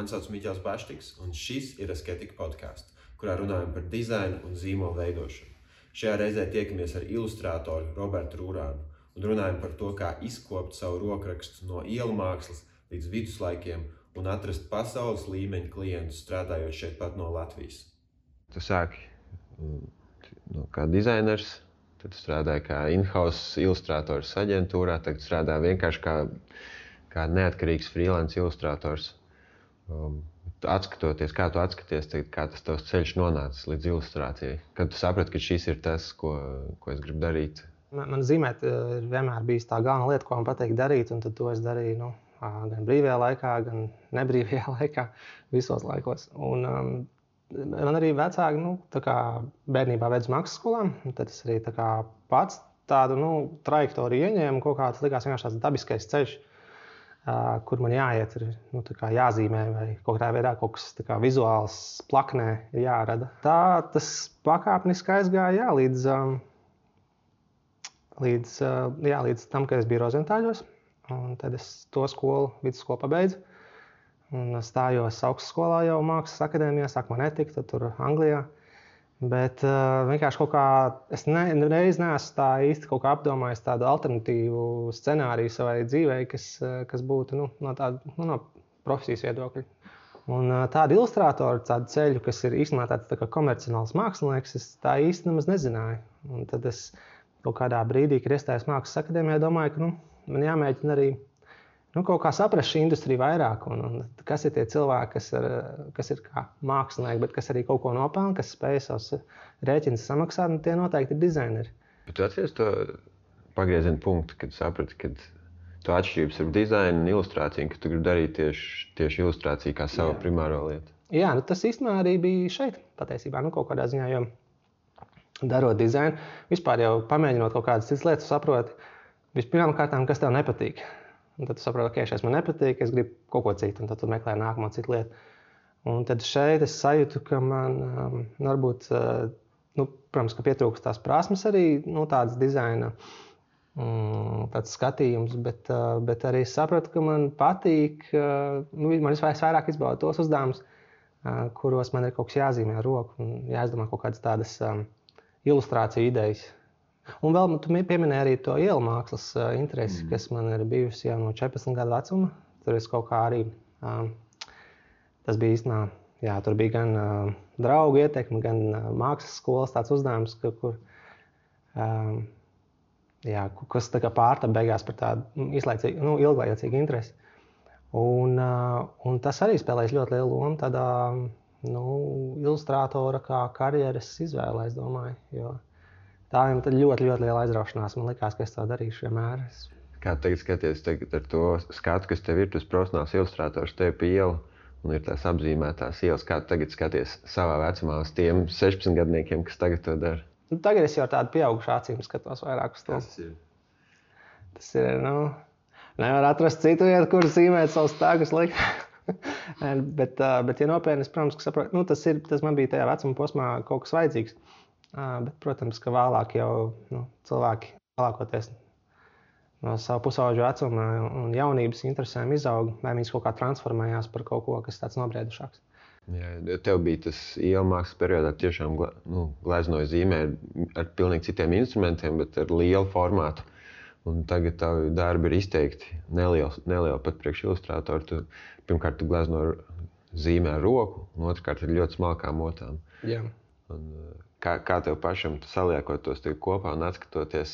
Mani sauc Miķels Baštiks, un šis ir Asketika podcasts, kurā runājam par dizainu un zīmolu veidošanu. Šajā reizē tiekamies ar ilustrātoru Robertu Rūrānu un runājam par to, kā izkopt savu rokrakstu no ielu mākslas līdz viduslaikiem un atrast pasaules līmeņa klientus strādājot šeit pat no Latvijas. Tu sāki kā dizainers, tad strādāji kā in-house ilustrators aģentūrā, tagad strādāji vienkārši kā neatkarīgs freelance ilustrators. Atskatoties, kā tu atskaties, kā tas tavs ceļš nonācis līdz ilustrācijai? Kad tu saprati, ka šis ir tas, ko es gribu darīt? Man zīmēt ir vienmēr bijis tā galvenā lieta, ko man patīk darīt, un tad to es darīju gan brīvajā laikā, gan nebrīvajā laikā, visos laikos. Un man arī vecāki tā kā bērnībā ved uz mākslas skolām, un tad es arī tā kā pats tādu trajektoriju ieņēmu, kaut kā tas likās vienkārši tāds dabiskais ceļš, kur man jāiet, ir tā kā jāzīmē vai kaut kādā veidā kaut kas tā kā vizuāls plaknē ir jārada. Tā tas pakāpeniski aizgāja līdz tam, kad es biju Rozentāļos, un tad es to skolu, vidusskolu pabeidzu. Un stājos augstskolā jau mākslas akadēmijā, sākumā netika, tad tur Anglijā. Bet vienkārši kaut kā es nereiz neesmu tā īsti kaut kā apdomājis tādu alternatīvu scenāriju savai dzīvei, kas būtu no profesijas viedokļa. Un tādu ilustrātoru, tādu ceļu, kas ir īstenībā tāds tā kā komercionāls mākslinieks, es tā īsti nemaz nezināju. Un tad es kaut kādā brīdī, kad iestājos mākslas akadēmijā, domāju, ka man jāmēģina arī kaut kā saprast šī industrija vairāk, un kas ir tie cilvēki, kas ir kā mākslinieki, bet kas arī kaut ko nopelna, kas spēj savus rēķinus samaksāt, un tie noteikti ir dizaineri. Bet tu atceries to pagrieziena punktu, kad saprati, ka tu atšķirības ar dizainu un ilustrāciju, ka tu gribi darīt tieši ilustrāciju kā savu primāro lietu? Jā, tas īstenībā arī bija šeit, patiesībā, kaut kādā ziņā, jo darot dizainu, vispār jau pamēģinot kaut kādas citas lietas, saproti, vispirmām kārtām, kas tev nepatīk. Un tad tu saproti, ka šeit man nepatīk, es gribu kaut ko citu, un tad tu meklē nākamo citu lietu. Un tad šeit es sajūtu, ka man varbūt, protams, ka pietrūkst tās prasmes arī, tādas dizaina, tāds skatījums, bet arī es sapratu, ka man patīk, man vairāk izbauda tos uzdevumus, kuros man ir kaut kas jāzīmē ar roku un jāizdomā kaut kādas tādas ilustrāciju idejas. Un vēl tu pieminēji arī to ielu mākslas interesi, kas man ir bijusi jau no 14 gadu vecuma. Tur es kaut kā arī, tas bija īstenībā, tur bija gan draugu ietekme, gan mākslas skolas tāds uzdevums, kas tā kā pārtapa beigās par tādu ilglaicīgu interesi. Un tas arī spēlēs ļoti lielu lomu tādā ilustrātora kā karjeras izvēlē, es domāju, jo tā ir ļoti, ļoti liela aizraušanās. Man likās, ka es to darīšu vienmēr. Kā tagad skaties ar to skatu, kas tev ir, tas profesionāls ilustrators tev pie ielu un ir tās apzīmētās ielas, kā tu tagad skaties savā vecumā uz tiem 16 gadniekiem, kas tagad to dara? Tagad es jau tādu pieaugušu acīm skatos vairāk uz to. Tas ir, nevar atrast citu vietu, kur zīmēt savus tēgus likt. bet ja nopietni, protams, ka saprotu, tas man bija tajā vecuma posmā kaut kas vajadzīgs. Bet, protams, ka vēlāk jau cilvēki lielākoties no savu pusauģu vecuma un jaunības interesēm izaug, vai viņas kaut kā transformējās par kaut ko, kas tāds nobriedušāks. Jā, tev bija tas ielu mākslas periodā tiešām gleznoja zīmē ar pilnīgi citiem instrumentiem, bet ar lielu formātu. Un tagad tavi darbi ir izteikti nelieli pat priekš ilustrātoru. Pirmkārt, tu glezno zīmē ar roku, un otrkārt ir ļoti smalkām motām. Jā. Un, kā tev pašam saliekot tos kopā un atskatoties?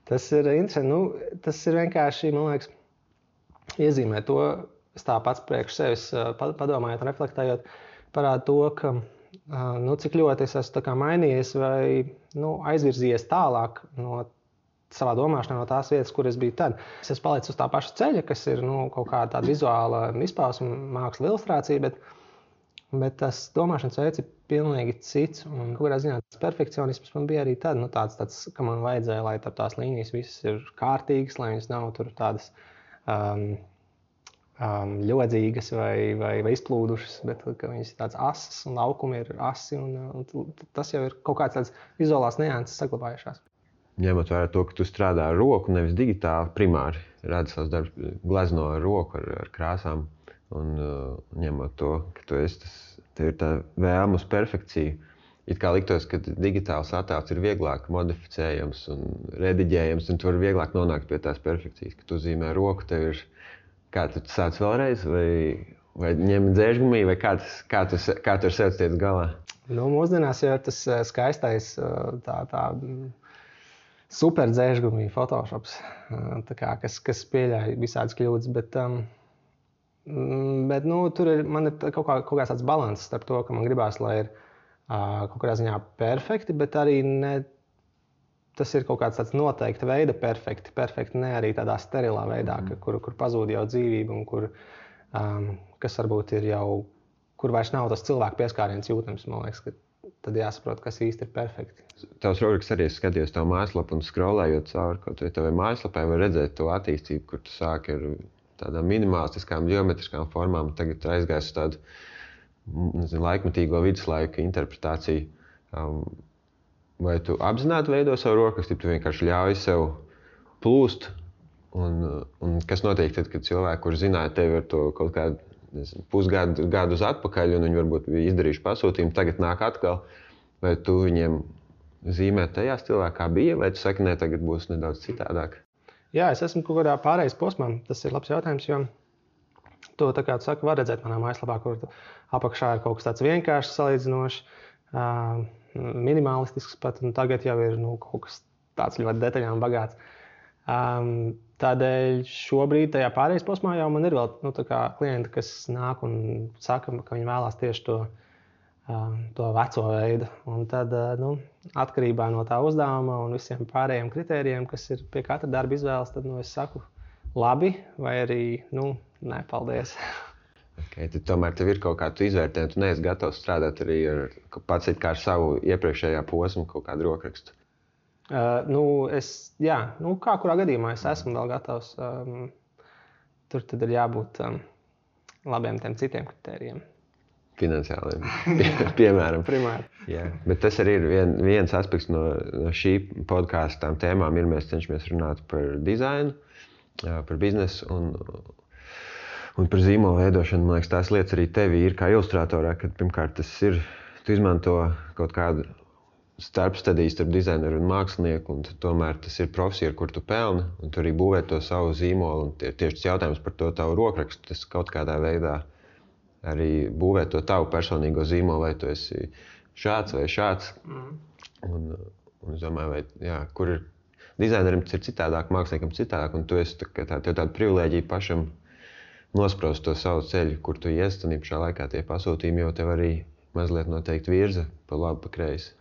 Tas ir interesanti. Tas ir vienkārši, man liekas, iezīmē to, es tā pats priekš sevis padomājot un reflektējot, parāda to, ka cik ļoti es esmu tā kā mainījies vai aizvirzījies tālāk no savā domāšanā no tās vietas, kur es biju tad. Es esmu palicis uz tā paša ceļa, kas ir kaut kāda tāda vizuāla izpausme, māksla, ilustrācija, bet tas domāšanas veids ir pilnīgi cits. Un kaut kādā ziņā tas perfekcionisms man bija arī tad, tāds, ka man vajadzēja, lai tās līnijas visas ir kārtīgas, lai viņas nav tur tādas ļodzīgas vai izplūdušas, bet ka viņas ir tādas asas un laukumi ir asi. Un tas jau ir kaut kāds tāds vizuālās nianses saglabājušās. Ņemot vērā to, ka tu strādā ar roku, nevis digitāli primāri, redzi savus darbus, glezno ar roku, ar krāsām. Un ņemot to, ka tev ir tā vēlme uz perfekciju. It kā liktos, ka digitāls attēls ir vieglāk modificējams un rediģējams, un tu vari vieglāk nonākt pie tās perfekcijas. Kad tu zīmē roku, tev ir kā tu sāc vēlreiz, vai ņem dzēžgumī, vai kā tu ar sevi tiec galā? Nu, mūsdienās jau ir tas skaistais tā super dzēžgumī Photoshops, kas pieļauj visādas kļūdas, bet nu, tur man ir kaut kāds tāds balanss starp to, ka man gribās, lai ir kaut kādā ziņā perfekti, bet arī tas ir kaut kāds tāds noteikta veida perfekti, ne arī tādā sterilā veidā, kur pazūd jau dzīvība un kas varbūt ir jau, kur vairs nav tas cilvēku pieskāriens jūtams, man liekas, ka tad jāsaprot, kas īsti ir perfekti. Tavs rokraksts arī skatījos tavu mājaslapu un scrollējot cauri kaut vai tavai mājaslapai, var redzēt to attīstību, kur tu sāki ar tādām minimalistiskām, geometriskām formām, tagad aizgājis uz tādu laikmetīgo viduslaiku interpretāciju. Vai tu apzināti veido savu rokrakstu, tu vienkārši ļauj sev plūst? Un kas notiek tad, kad cilvēki, kur zināja tevi ar to kaut kādu pusgadu uz atpakaļ, un viņi varbūt bija izdarījuši pasūtījumu, tagad nāk atkal, vai tu viņiem zīmē tajā stilā, kā bija, vai tu saki, ne, tagad būs nedaudz citādāk? Jā, es esmu kaut kādā pārējais posmā. Tas ir labs jautājums, jo to, tā kā tu saki, var redzēt manā mājaslapā, kur apakšā ir kaut kas tāds vienkāršs, salīdzinošs, minimalistisks pat, un tagad jau ir kaut kas tāds ļoti detaļām bagāts. Tādēļ šobrīd tajā pārējais posmā jau man ir vēl klienti, kas nāk un saka, ka viņi vēlās tieši to veco veidu. Un tad atkarībā no tā uzdevuma un visiem pārējiem kritērijiem, kas ir pie katra darba izvēles, tad es saku labi vai arī nē, paldies. Okay, tad tomēr tev ir kaut kā tu izvērtē, tu neesi gatavs strādāt arī pats ar savu iepriekšējā posmu kaut kādu rokrakstu? Kā kurā gadījumā es esmu vēl gatavs. Tur tad ir jābūt labiem tiem citiem kritērijiem. Finansiāliem, piemēram. Primāri. Jā, bet tas arī ir viens aspekts no šī podkāsta tām tēmām, mēs cenšamies runāt par dizainu, par biznesu un par zīmolu veidošanu. Man liekas, tās lietas arī tevi ir kā ilustratorā, kad pirmkārt tas ir, tu izmanto kaut kādu starpstadiju starp dizaineru un mākslinieku, un tomēr tas ir profesija, ar kur tu pelni, un tu arī būvē to savu zīmolu, un tieši tas jautājums par to tavu rokrakstu, tas kaut kādā veidā arī būvē to tavu personīgo zīmolu, vai tu esi šāds vai šāds. Un es domāju, kur ir dizainerim tas ir citādāk, māksliniekam citādāk, un tu esi tāda privilēģija pašam nospraust to savu ceļu, kur tu ies, un šā laikā tie pasūtījumi jau tev arī mazliet noteikti virza pa labi, pa kreisi.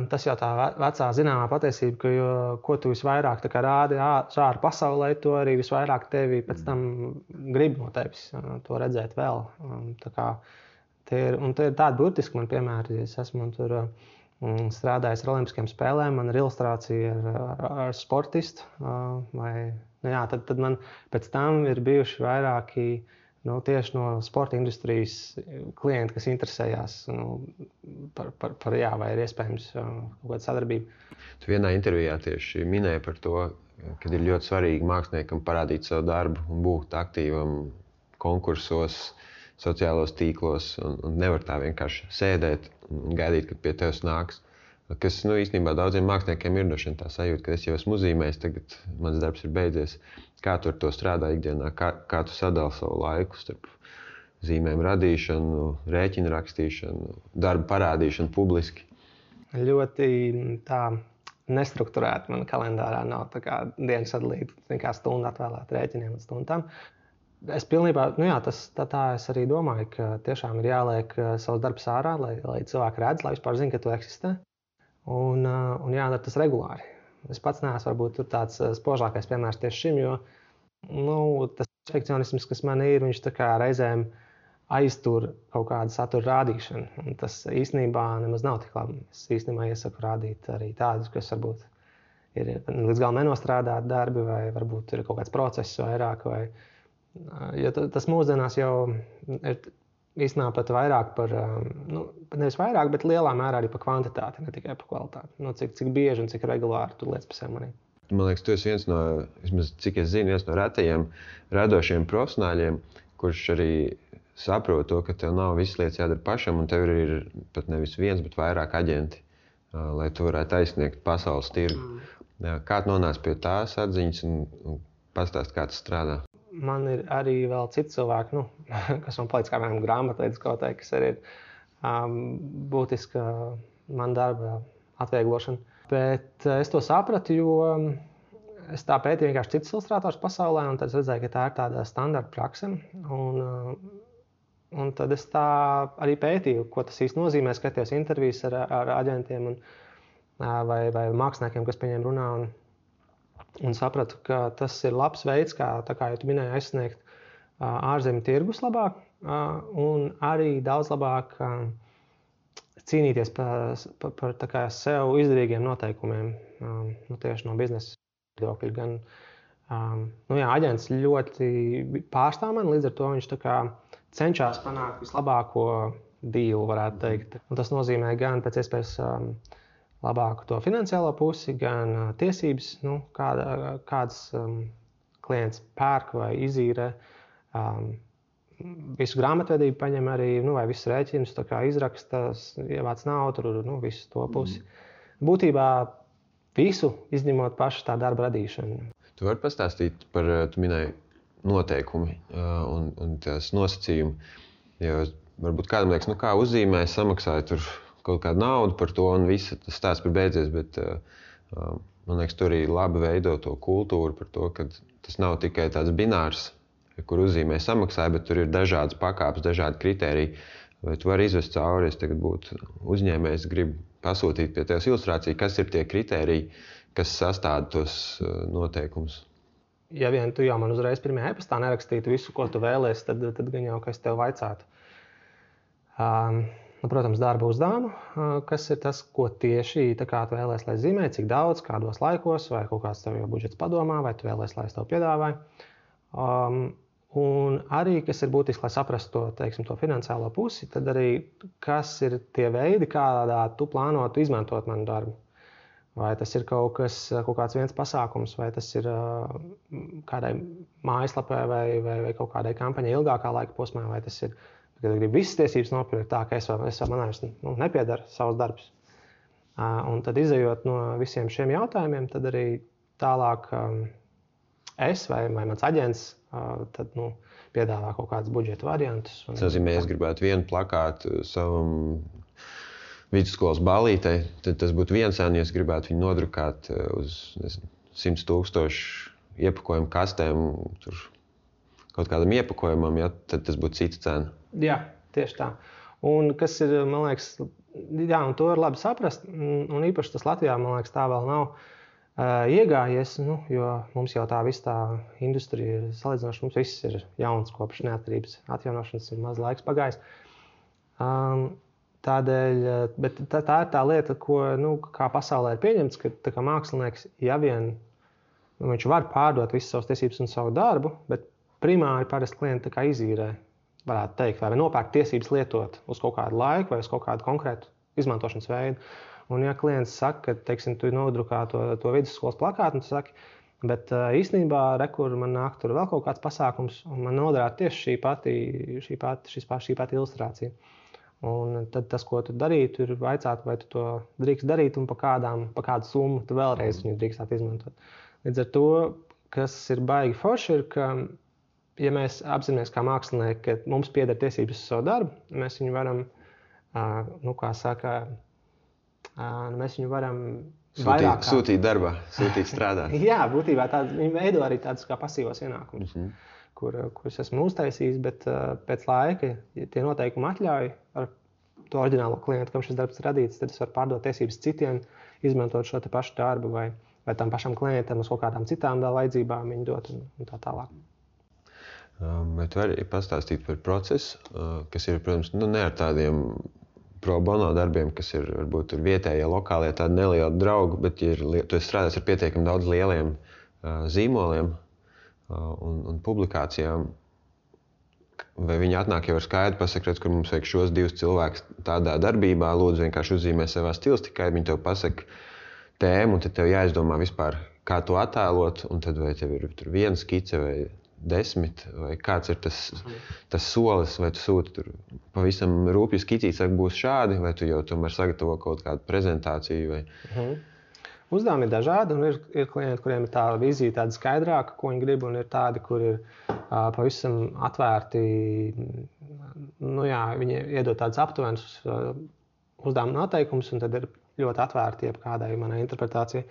Tas jau tā vecā zināmā patiesība, ka ko tu visvairāk rādi ārā pasaulē, to arī visvairāk tevi pēc tam grib no tevis to redzēt vēl. Tie ir tādi burtiski man piemēri. Es esmu tur strādājis ar Olimpiskajām spēlēm, man ir ilustrācija ar sportistu. Tad man pēc tam ir bijuši vairāki tieši no sporta industrijas klienti, kas interesējās vai ir iespējams kaut kāda sadarbība. Tu vienā intervijā tieši minēji par to, ka ir ļoti svarīgi māksliniekam parādīt savu darbu un būt aktīvam konkursos, sociālos tīklos un nevar tā vienkārši sēdēt un gaidīt, kad pie tevis nāks. Kas īstenībā daudziem māksliniekiem ir tā sajūta, ka es jau esmu uzzīmējis, tagad mans darbs ir beidzies. Kā tu ar to strādā ikdienā? Kā tu sadali savu laiku starp zīmēm radīšanu, rēķinu rakstīšanu, darbu parādīšanu publiski? Ļoti tā nestrukturēta man kalendārā nav tā kā diena sadalīta, kā stundu atvēlēt rēķiniem un stundām. Es pilnībā, tā es arī domāju, ka tiešām ir jāliek savs darbs ārā, lai cilvēki redz, lai vispār zina, ka tu eksistē. Un jādara tas regulāri. Es pats neesmu varbūt tur tāds spožākais piemērs tieši šim, jo tas perfekcionisms, kas man ir, viņš tā kā reizēm aiztur kaut kādu satura rādīšanu. Un tas īstenībā nemaz nav tik labi. Es īstenībā iesaku rādīt arī tādus, kas varbūt ir līdz galam nenostrādāti darbi, vai varbūt ir kaut kāds process vairāk. Jo tas mūsdienās jau ir īstenībā pat vairāk par, nevis vairāk, bet lielā mērā arī par kvantitāti, ne tikai par kvalitāti. Cik bieži un cik regulāri tu lietas pa sevi manī. Man liekas, tu esi viens no, vismaz cik es zinu, viens no retajiem radošiem profesionāļiem, kurš arī saproti to, ka tev nav visas lietas jādara pašam, un tev ir pat nevis viens, bet vairāk aģenti, lai tu varētu aizsniegt pasaules tirgu. Kā tu nonāc pie tās atziņas un pastāst, kā tas strādā? Man ir arī vēl citi cilvēki, kas man palīdz, kā piemēram grāmatvedis kaut kā, kas arī ir būtiska man darba atvieglošana. Bet es to sapratu, jo es tā pētīju vienkārši citus ilustrātors pasaulē, un tad es redzēju, ka tā ir tāda standarta prakse. Un tad es tā arī pētīju, ko tas īsti nozīmē, skatījos intervijas ar aģentiem vai māksliniekiem, kas pie viņiem runā. Un sapratu, ka tas ir labs veids, kā jau tu minēji, aizsniegt ārzemju tirgus labāk un arī daudz labāk cīnīties par sev izdevīgiem noteikumiem, tieši no biznesa viedokļa. Gan aģents ļoti pārstāv mani, līdz ar to viņš cenšas panākt vislabāko dealu, varētu teikt. Un tas nozīmē gan pēc iespējas labāku to finansiālo pusi, gan tiesības, kāds klients pērk vai izīrē. Visu grāmatvedību paņem arī, vai visus rēķinus izraksta, ievāc naudu, visu to pusi. Būtībā visu izņemot pašu tā darba radīšanu. Tu vari pastāstīt par, tu minēji, noteikumi un tās nosacījumi. Jo varbūt kādam liekas, kā uzzīmē, samaksāja tur kaut kādu naudu par to un viss tas stāsts par beidzies, bet man liekas, tur arī labi veido to kultūru par to, ka tas nav tikai tāds binārs, kur uzzīmē samaksāja, bet tur ir dažādas pakāpes, dažādi kritēriji. Vai tu vari izvest cauri, es tagad būtu uzņēmējs, gribu pasūtīt pie tevis ilustrāciju, kas ir tie kritēriji, kas sastāda tos noteikumus? Ja vien tu jau man uzreiz pirmajā e-pastā nerakstītu visu, ko tu vēlies, tad gan jau, ka es tev vaicātu. Protams, darba uzdevumu, kas ir tas, ko tieši tu vēlies, lai zīmē, cik daudz, kādos laikos, vai kaut kāds tev jau budžets padomā, vai tu vēlies, lai es tev piedāvāju. Un arī, kas ir būtiski, lai saprastu to finansiālo pusi, tad arī, kas ir tie veidi, kādā tu plānotu izmantot manu darbu. Vai tas ir kaut kāds viens pasākums, vai tas ir kādai mājaslapai vai kaut kādai kampaņai ilgākā laika posmā, vai tas ir, kad gribu visas tiesības nopirkt tā, ka es man vairs nepiedara savs darbs. Un tad izejot no visiem šiem jautājumiem, tad arī tālāk es vai mans aģents tad, piedāvā kaut kādus budžeta variantus. Tas nozīmē, es gribētu vienu plakātu savam vidusskolas ballītei, tad tas būtu viens cena, ja es gribētu viņu nodrukāt uz 100,000 iepakojumu kastēm, tur kaut kādam iepakojumam, tad tas būtu cita cena. Jā, tieši tā. Un kas ir, man liekas, un to ir labi saprast, un īpaši tas Latvijā, man liekas, tā vēl nav iegājies, jo mums jau tā visa tā industrija ir salīdzinoši, mums viss ir jauns kopš neatkarības atjaunošanas, ir maz laiks pagājis. Tādēļ, bet tā ir tā lieta, ko kā pasaulē ir pieņemts, ka mākslinieks, ja vien viņš var pārdot visas savas tiesības un savu darbu, bet primāri parasti klienti izīrē, varētu teikt, vai nopērk tiesības lietot uz kaut kādu laiku vai uz kaut kādu konkrētu izmantošanas veidu. Un ja klients saka, ka, teiksim, tu nodrukā to vidusskolas plakātu, un tu saki, bet īstenībā, kur man nāk tur vēl kaut kāds pasākums, un man noderētu tieši šī pati ilustrācija. Un tad tas, ko tu darītu, ir vaicāt, vai tu to drīkst darīt un pa kādu summu tu vēlreiz viņu drīkstāt izmantot. Līdz ar to, kas ir baigi forši, ir, ka, ja mēs apzināmies kā mākslinieki, ka mums pieder tiesības uz savu darbu, mēs viņu varam, mēs viņu varam sūtīt darbā, sūtīt strādāt. Jā, būtībā viņi veido arī tādus kā pasīvos ienākumus. Kurus esmu uztaisījis, bet pēc laika, ja tie noteikumi atļauj ar to oriģinālo klientu, kam šis darbs ir radīts, tad es varu pārdot tiesības citiem, izmantot šo te pašu darbu vai tam pašam klientam uz kaut kādām citām vajadzībām viņu dot un tā tālāk. Bet var arī pastāstīt par procesu, kas ir, protams, ne ar tādiem pro bono darbiem, kas ir varbūt tur vietējie, lokālie, tādi nelieli draugi, bet ja tu esi strādājis ar pietiekami daudz lieliem zīmoliem, un publikācijām, vai viņi atnāk jau ar skaidru pasaka, redz, kur mums vajag šos divus cilvēkus tādā darbībā, lūdzu vienkārši uzzīmē savā stilistikai, viņi tev pasaka tēmu, un tad tev jāizdomā vispār, kā to attēlot, un tad vai tev ir tur viena skice vai 10, vai kāds ir tas solis, vai tu sūti tur pavisam rūpīgi skicīti, saka, būs šādi, vai tu jau tomēr sagatavo kaut kādu prezentāciju? Vai... Uzdevumi ir dažādi, un ir klienti, kuriem ir tā vīzija tāda skaidrāka, ko viņi grib, un ir tādi, kur ir pavisam atvērti, viņi iedod tādus aptuvenus uzdevumu noteikumus, un tad ir ļoti atvērti jebkādai manai interpretācijai.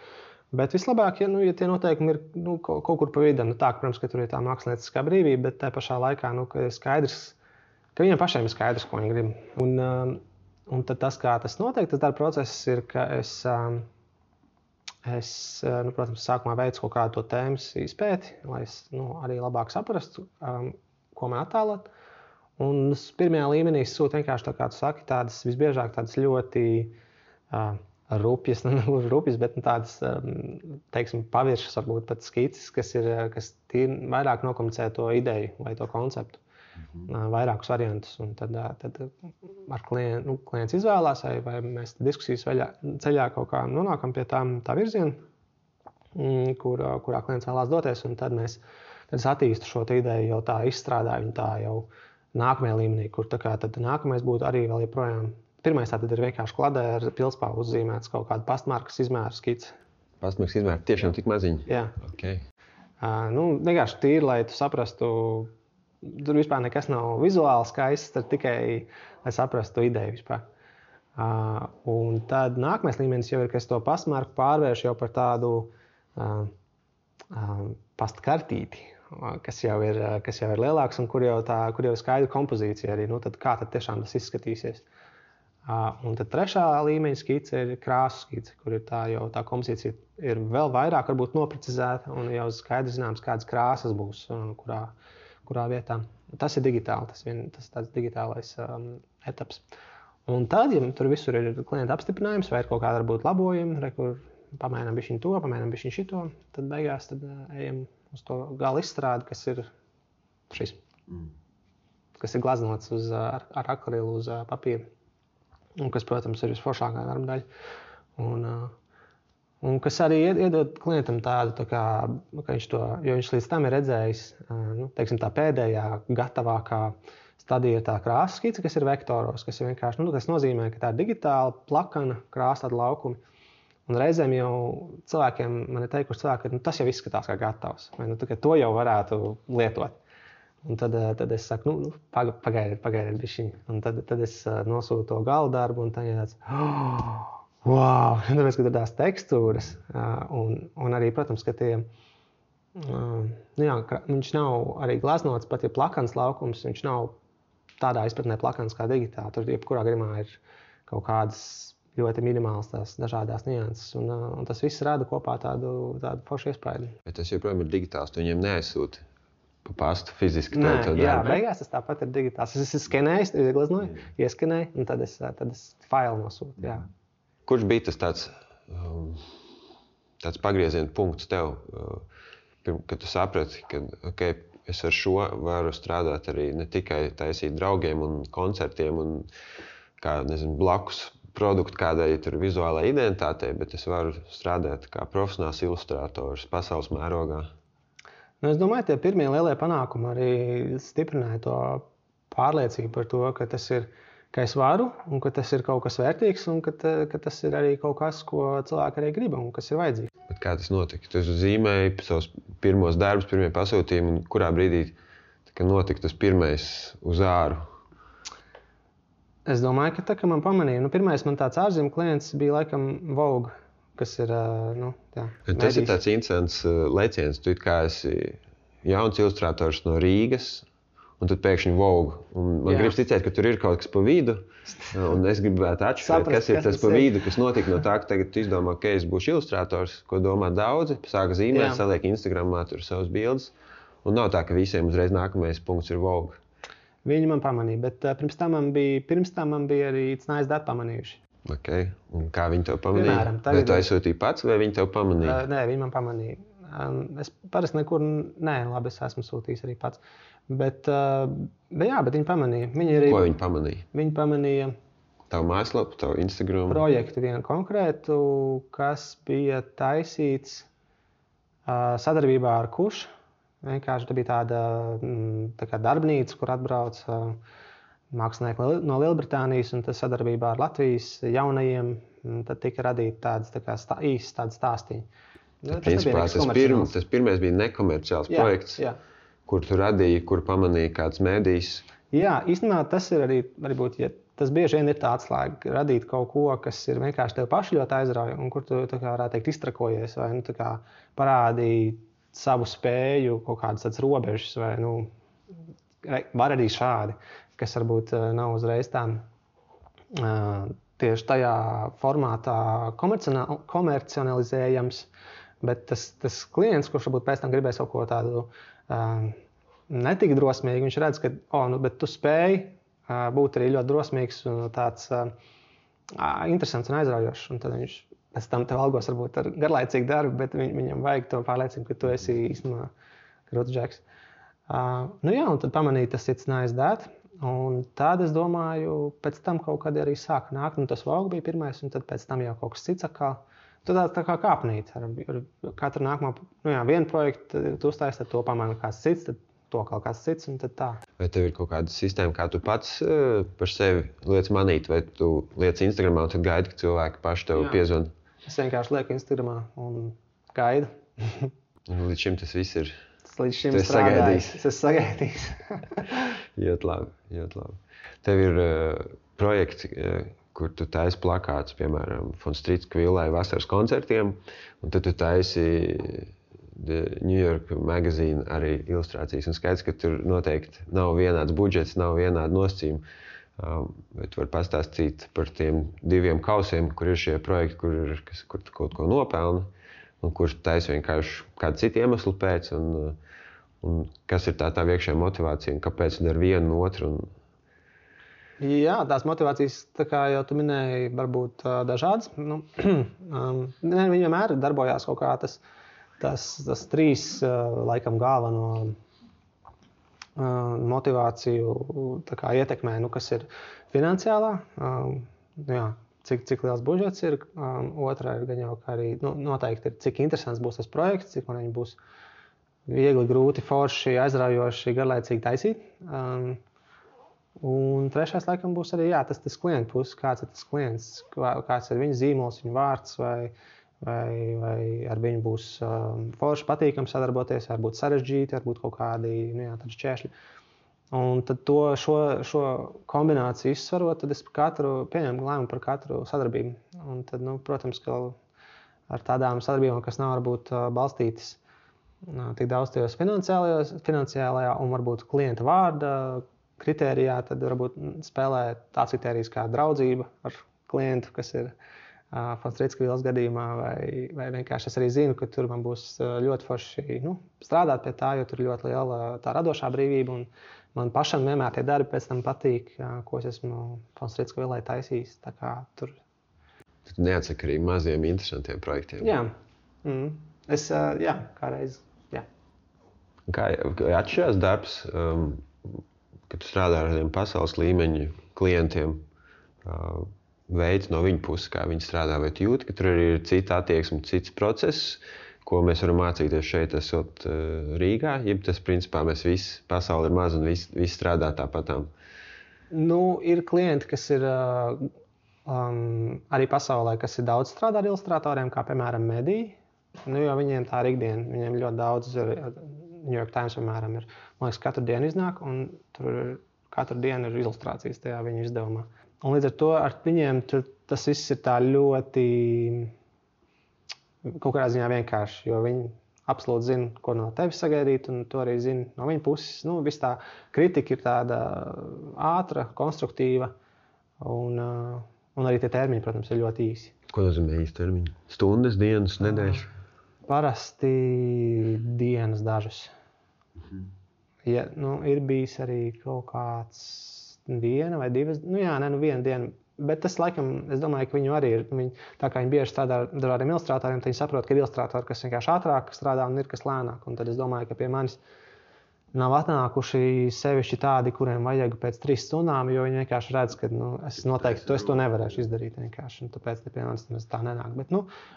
Bet vislabāk, ja tie noteikumi ir kaut kur pa vidu, tā, protams, ka tur ir tā mākslinieckā brīvība, bet tajā pašā laikā, ka ir skaidrs, ka viņiem pašiem ir skaidrs, ko viņi grib. Un tad tas, kā tas notiek, tas darba process ir, ka es protams, sākumā veicu kaut kādu to tēmas izpēti, lai es arī labāk saprastu, ko man attēlot. Un pirmajā līmenī es sūtu vienkārši, tā kā tu saki, tādas visbiežāk tādas ļoti rupjas, bet tādas, teiksim, paviršas, varbūt pat skices, kas vairāk nokomunicē to ideju vai to konceptu, vairākus variantus. Un tad ar klients izvēlās, vai mēs diskusijas ceļā kaut kā nonākam pie tā virziena, kurā klients vēlās doties, un tad es attīstu šo ideju, jau tā izstrādāju viņu tā jau nākamajā līmenī, kur tad nākamais būtu arī vēl joprojām. Pirmais tātad ir vienkārši kladē ar pilspāvu uzzīmēts kaut kādu pastmarkas izmēru skici. Pastmarkas izmēru tiešām tik maziņi? Jā. Okay. Vienkārši tīri, lai tu saprastu, tur vispār nekas nav vizuāli skaists, tad tikai, lai saprastu ideju vispār. Un tad nākamais līmenis jau ir, ka es to pastmarku pārvēršu jau par tādu pastkartīti, kas jau ir lielāks un kur jau ir skaidra kompozīcija arī, tad kā tad tiešām tas izskatīsies. Un tad trešā līmeņa skice ir krāsu skice, kur ir tā kompozīcija ir vēl vairāk varbūt noprecizēta un jau skaidrs zināms, kādas krāsas būs, kurā vietā. Tas ir digitāli, tas tāds digitālais etaps. Un tad, ja tur visur ir klienta apstiprinājums vai ir kaut kāda varbūt labojumi, kur pamēģinām bišķiņ to, pamēģinām bišķiņ šito, tad beigās ejam uz to gala izstrādi, kas ir šis, kas ir glaznots ar akrilu uz papīra. Un kas, protams, ir visforšākā darba daļa. Un kas arī iedod klientam tādu, kā viņš to, jo viņš līdz tam ir redzējis, teiksim, tā pēdējā gatavākā stadija ir tā krāsas skice, kas ir vektoros, kas ir vienkārši, tas nozīmē, ka tā ir digitāla, plakana, krāsāta laukumi. Un reizēm jau cilvēkiem, man ir teikuši cilvēki, ka tas jau izskatās kā gatavs, vai to jau varētu lietot. Un tad es saku, pagaidiet bišķiņ. Un tad es nosūtu to gala darbu, un tad ir tāds, wow! Tāpēc, ka tur tās tekstūras, un arī, protams, ka viņš nav arī glaznots, pat ja plakans laukums, viņš nav tādā izpratnē plakans kā digitāli. Tur jebkurā gadījumā ir kaut kādas ļoti minimāls tās dažādās nianses, un tas viss rada kopā tādu foršu iespaidu. Bet tas joprojām ir digitāls, tu viņiem neaizsūti pa pastu fiziski? Jā, beigās tas tāpat ir digitāls. Es skenēju, ieglaznoju, ieskenēju, un tad es failu nosūtu. Jā. Kurš bija tas tāds pagrieziena punkts tev, kad tu saprati, ka es ar šo varu strādāt arī ne tikai taisīt draugiem un koncertiem un blakus produktu kādai vizuālai identitātei, bet es varu strādāt kā profesionāls ilustrators pasaules mērogā? Es domāju, tie pirmie lielie panākumi arī stiprināja to pārliecību par to, ka tas ir, ka es varu, un ka tas ir kaut kas vērtīgs, un ka tas ir arī kaut kas, ko cilvēki arī grib un kas ir vajadzīgs. Bet kā tas notika? Tu zīmēji savus pirmos darbus, pirmie pasūtījumi, un kurā brīdī notika tas pirmais uz āru? Es domāju, ka man pamanīja. Pirmais man tāds ārzemju klients bija laikam Vogue. Kas ir, tas ir tāds interesants leciens. Tu kā esi jauns ilustrators no Rīgas, un tad pēkšņi Vogue. Un man gribas ticēt, ka tur ir kaut kas pa vidu, un es gribētu atšķirt, kas ir tas pa vidu, kas notika no tā, ka tagad tu izdomā, ka es būšu ilustrators, ko domā daudzi, sāka zīmēt, saliek Instagramā tur savus bildes, un nav tā, ka visiem uzreiz nākamais punkts ir Vogue. Viņi man pamanīja, bet pirms tam man bija arī It's Nice That pamanījuši. Okay. Un kā viņi tev pamanīja? Vai tu aizsūtīji pats, vai viņi tev pamanīja? Nē, viņi man pamanīja. Es parasti nekur, labi, es esmu sūtījis arī pats. Bet viņi pamanīja. Ko viņi pamanīja? Viņi pamanīja tavu mājaslapu, tavu Instagram? Projektu vienu konkrētu, kas bija taisīts sadarbībā ar Kuš, Vienkārši tā bija tāda tā kā darbnīca, kur atbrauc mākslinieki no Lielbritānijas, un tas sadarbībā ar Latvijas jaunajiem, tad tika radīti tādas īstas tādas stāstīņi. Principā tas pirmais bija nekomerciāls projekts, kur tu radīji, kur pamanīji kāds mēdījis. Jā, īstenībā tas ir arī varbūt, ja tas bieži vien ir tā atslēga, radīt kaut ko, kas ir vienkārši tev paši ļoti aizrauja, un kur tu, tā kā varētu teikt, iztrakojies, vai tā kā parādīji savu spēju, kaut kādas tāds robežas, vai var arī šādi, kas varbūt nav uzreiz tā tieši tajā formātā komercionalizējams, bet tas klients, kurš varbūt pēc tam gribēs kaut ko tādu netik drosmīgi, viņš redz, ka bet tu spēj būt arī ļoti drosmīgs un tāds interesants un aizraujošs. Un tad viņš pēc tam tev algos varbūt ar garlaicīgu darbu, bet viņam vajag to pārliecību, ka tu esi īstenībā krūts džeks. Un tad pamanīja tas It's Nice That. Un tad es domāju, pēc tam kaut kad arī sāka nākt, tas Vogue bija pirmais, un tad pēc tam jau kaut kas cits atkal. Tad tā kā kāpnīt. Ar katru nākamo, vienu projektu tu uztaisi, tad to pamana kāds cits, tad to kaut kāds cits, un tad tā. Vai tev ir kaut kāda sistēma, kā tu pats par sevi liec manīt, vai tu liec Instagramā un tad gaidi, ka cilvēki paši tev piezvan? Es vienkārši lieku Instagramā un gaidu. Un līdz šim tas viss ir. Līdz šim strādājis. Es esmu sagaidījis. Ļoti labi. Tev ir projekti, kur tu taisi plakātus, piemēram, Von Strītska villai vasaras koncertiem, un tad tu taisi New York Magazine arī ilustrācijas. Un skaidrs, ka tur noteikti nav vienāds budžets, nav vienādi nosacījumi. Bet tu vari pastāstīt par tiem 2 kausiem, kur ir šie projekti, kur tu kaut ko nopelni, un kurš taisa vienkārši kādu citu iemeslu pēc, un kas ir tā iekšējā motivācija, un kāpēc tu dari vienu un otru. Jā, tās motivācijas, tā kā jau tu minēji, varbūt dažādas. Viņi vienmēr darbojās kaut kā tas 3 laikam galveno motivāciju ietekmē, kas ir finansiālā, cik liels budžets ir, otrā ir gan jau, ka arī noteikti ir, cik interesants būs tas projekts, cik man viņi būs viegli, grūti, forši, aizraujoši, garlaicīgi taisīt. Un trešais laikam būs arī tas klienta puses, kāds ir tas klients, kāds ir viņa zīmols, viņa vārds, vai ar viņu būs forši patīkami sadarboties, varbūt sarežģīti, varbūt kaut kādi šķēršļi. Un tad šo kombināciju izsvarot, tad es pieņemu lēmumu par katru sadarbību. Un tad, protams, ka ar tādām sadarbībām, kas nav varbūt balstītas tik daudz tajos finansiālajā un varbūt klienta vārda kritērijā, tad varbūt spēlē tāds kritērijs kā draudzība ar klientu, kas ir Von Strītska villas gadījumā, vai vienkārši es arī zinu, ka tur man būs ļoti forši strādāt pie tā, jo tur ir ļoti liela tā radošā brīvība, un man pašam vienmēr tie darbi pēc tam patīk, ko es esmu Von Strītska villai taisījis. Tā kā tur. Tu neatsaki arī maziem interesantiem projektiem. Jā. Es, kādreiz, jā. Kā atšķirās darbs, kad tu strādā ar tādiem pasaules līmeņa klientiem, veids no viņa puses, kā viņi strādā, vai tu jūti, ka tur arī ir cita attieksme, cits process, ko mēs varam mācīties šeit, esot Rīgā, jeb tas, principā, mēs visi, pasauli ir maz un visi strādā tāpatām? Ir klienti, kas ir arī pasaulē, kas ir daudz strādā ar ilustratoriem, kā, piemēram, mediji, jo viņiem tā ir ikdiena, viņiem ļoti daudz, New York Times, piemēram, ir, man liekas, katru dienu iznāk, un tur katru dienu ir ilustrācijas tajā viņu izdevumā. Un līdz ar to ar viņiem tas viss ir tā ļoti kaut kādā ziņā vienkārši, jo viņi absolūti zina, ko no tevis sagaidīt, un to arī zina no viņa puses. Viss tā kritika ir tāda ātra, konstruktīva, un arī tie termiņi, protams, ir ļoti īsi. Ko nozīmē īsti termiņi? Stundas, dienas, nedēļas? Parasti dienas dažas. Ja, ir bijis arī kaut kāds 1 vai 2, viena diena. Bet tas, laikam, es domāju, ka viņu arī ir. Tā kā viņi bieži strādā ar dažādiem ilustratoriem, tad viņi saprot, ka ir ilustratori, kas vienkārši ātrāk strādā un ir kas lēnāk. Un tad es domāju, ka pie manis nav atnākuši sevišķi tādi, kuriem vajag pēc 3 stundām, jo viņi vienkārši redz, ka es noteikti to nevarēšu izdarīt vienkārši, un tāpēc piemēram tā nenāk. Bet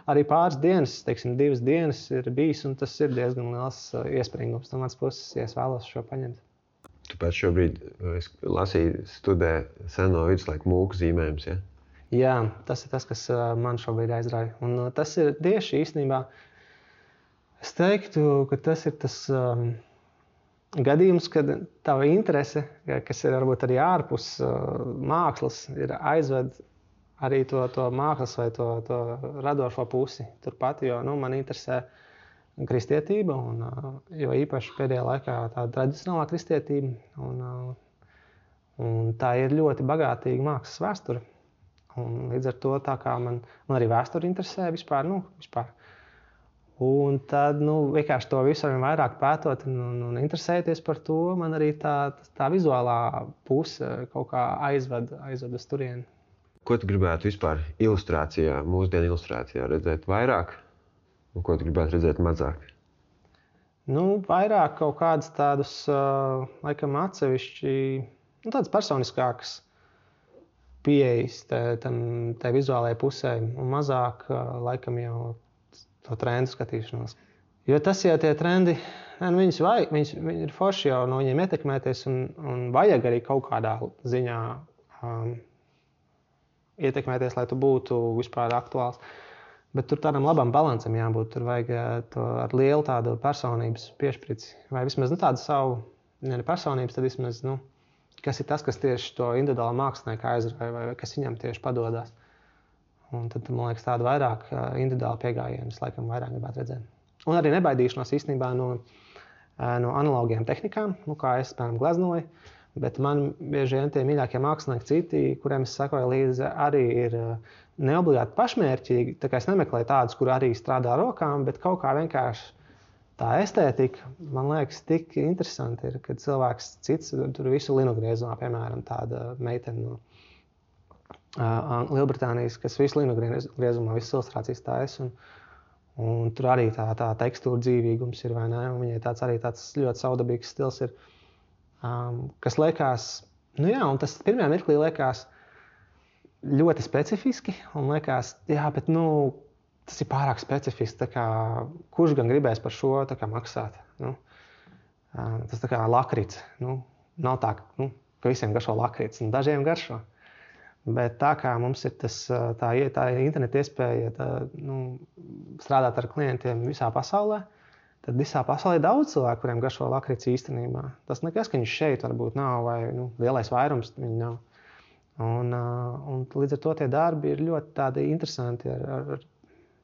arī pāris dienas, teiksim, 2 dienas ir bijis, un tas ir diezgan liels iespringums no manas puses, ja es vēlos šo paņemt. Tu pēc šobrīd, es lasīju, studē seno viduslaiku mūku zīmējums, ja? Jā, tas ir tas, kas man šobrīd aizrauja. Un tas ir tieši īstenībā, es teiktu, ka tas ir tas gadījums, kad tava interese, kas ir varbūt arī ārpus mākslas, ir aizved arī to mākslas vai to radošo pusi turpat, jo man interesē kristietība, jo īpaši pēdējā laikā tāda tradicionālā kristietība, un tā ir ļoti bagātīga mākslas vēsture. Un līdz ar to tā kā man arī vēsture interesē vispār. Un tad vienkārši to visu arvien vairāk pētot un interesēties par to, man arī tā vizuālā puse kaut kā aizved uz turieni. Ko tu gribētu vispār ilustrācijā, mūsdienu ilustrācijā redzēt vairāk? Un ko tu gribētu redzēt mazāk? Vairāk kaut kādas tādas, laikam, atsevišķi, tādas personiskākas pieejas tai vizuālajai pusē un mazāk, laikam, jau to trendu skatīšanos. Jo tas jau tie trendi, viņi ir forši jau no viņiem ietekmēties un vajag arī kaut kādā ziņā ietekmēties, lai tu būtu vispār aktuāls. Bet tur tādam labam balansam jābūt. Tur vajag to ar lielu tādu personības piešprici. Vai vismaz tādu savu, ne personības, tad vismaz, kas ir tas, kas tieši to individuālu mākslinieku aizrauja vai kas viņam tieši padodas. Un tad, man liekas, tādu vairāk individuālu piegājienu es laikam vairāk gribētu redzēt. Un arī nebaidīšanos īstenībā no analogiem tehnikām, kā es, piemēram, gleznoju, bet man bieži vien tie mīļākie mākslinieki citi, kuriem es sekoju līdzi, arī ir neobligāti pašmērķīgi. Tā kā es nemeklēju tādus, kur arī strādā rokām, bet kaut kā vienkārši tā estētika, man liekas, tik interesanti ir, kad cilvēks cits tur visu linu griezumā, piemēram, tāda meitene no Lielbritānijas, kas visu linu griezumā, visas ilustrācijas taisa, un tur arī tā tekstūra dzīvīgums ir, vai ne, un viņai tāds ļoti savdabīgs stils ir, kas liekas, un tas pirmajā mirklī liekas ļoti specifiski, un liekas, bet, tas ir pārāk specifiski, tā kā, kurš gan gribēs par šo tā kā maksāt, tas tā kā lakrits, nav tā, ka visiem garšo lakrits, un dažiem garšo. Bet tā kā mums ir tā interneta iespēja strādāt ar klientiem visā pasaulē, tad visā pasaulē ir daudz cilvēku, kuriem garšo lakrits īstenībā. Tas nekas, ka viņš šeit varbūt nav, vai lielais vairums viņi nav. Un līdz ar to tie darbi ir ļoti tādi interesanti ar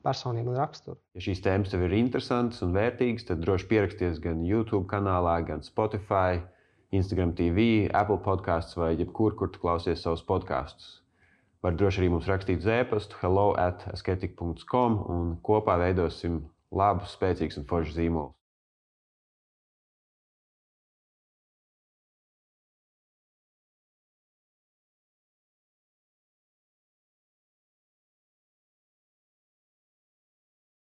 personību un raksturu. Ja šīs tēmas tev ir interesantas un vērtīgas, tad droši pieraksties gan YouTube kanālā, gan Spotify, Instagram TV, Apple podcasts vai jebkur, kur tu klausies savus podkastus. Var droši arī mums rakstīt uz e-pastu hello@asketik.com un kopā veidosim labus, spēcīgus un foršus zīmolus.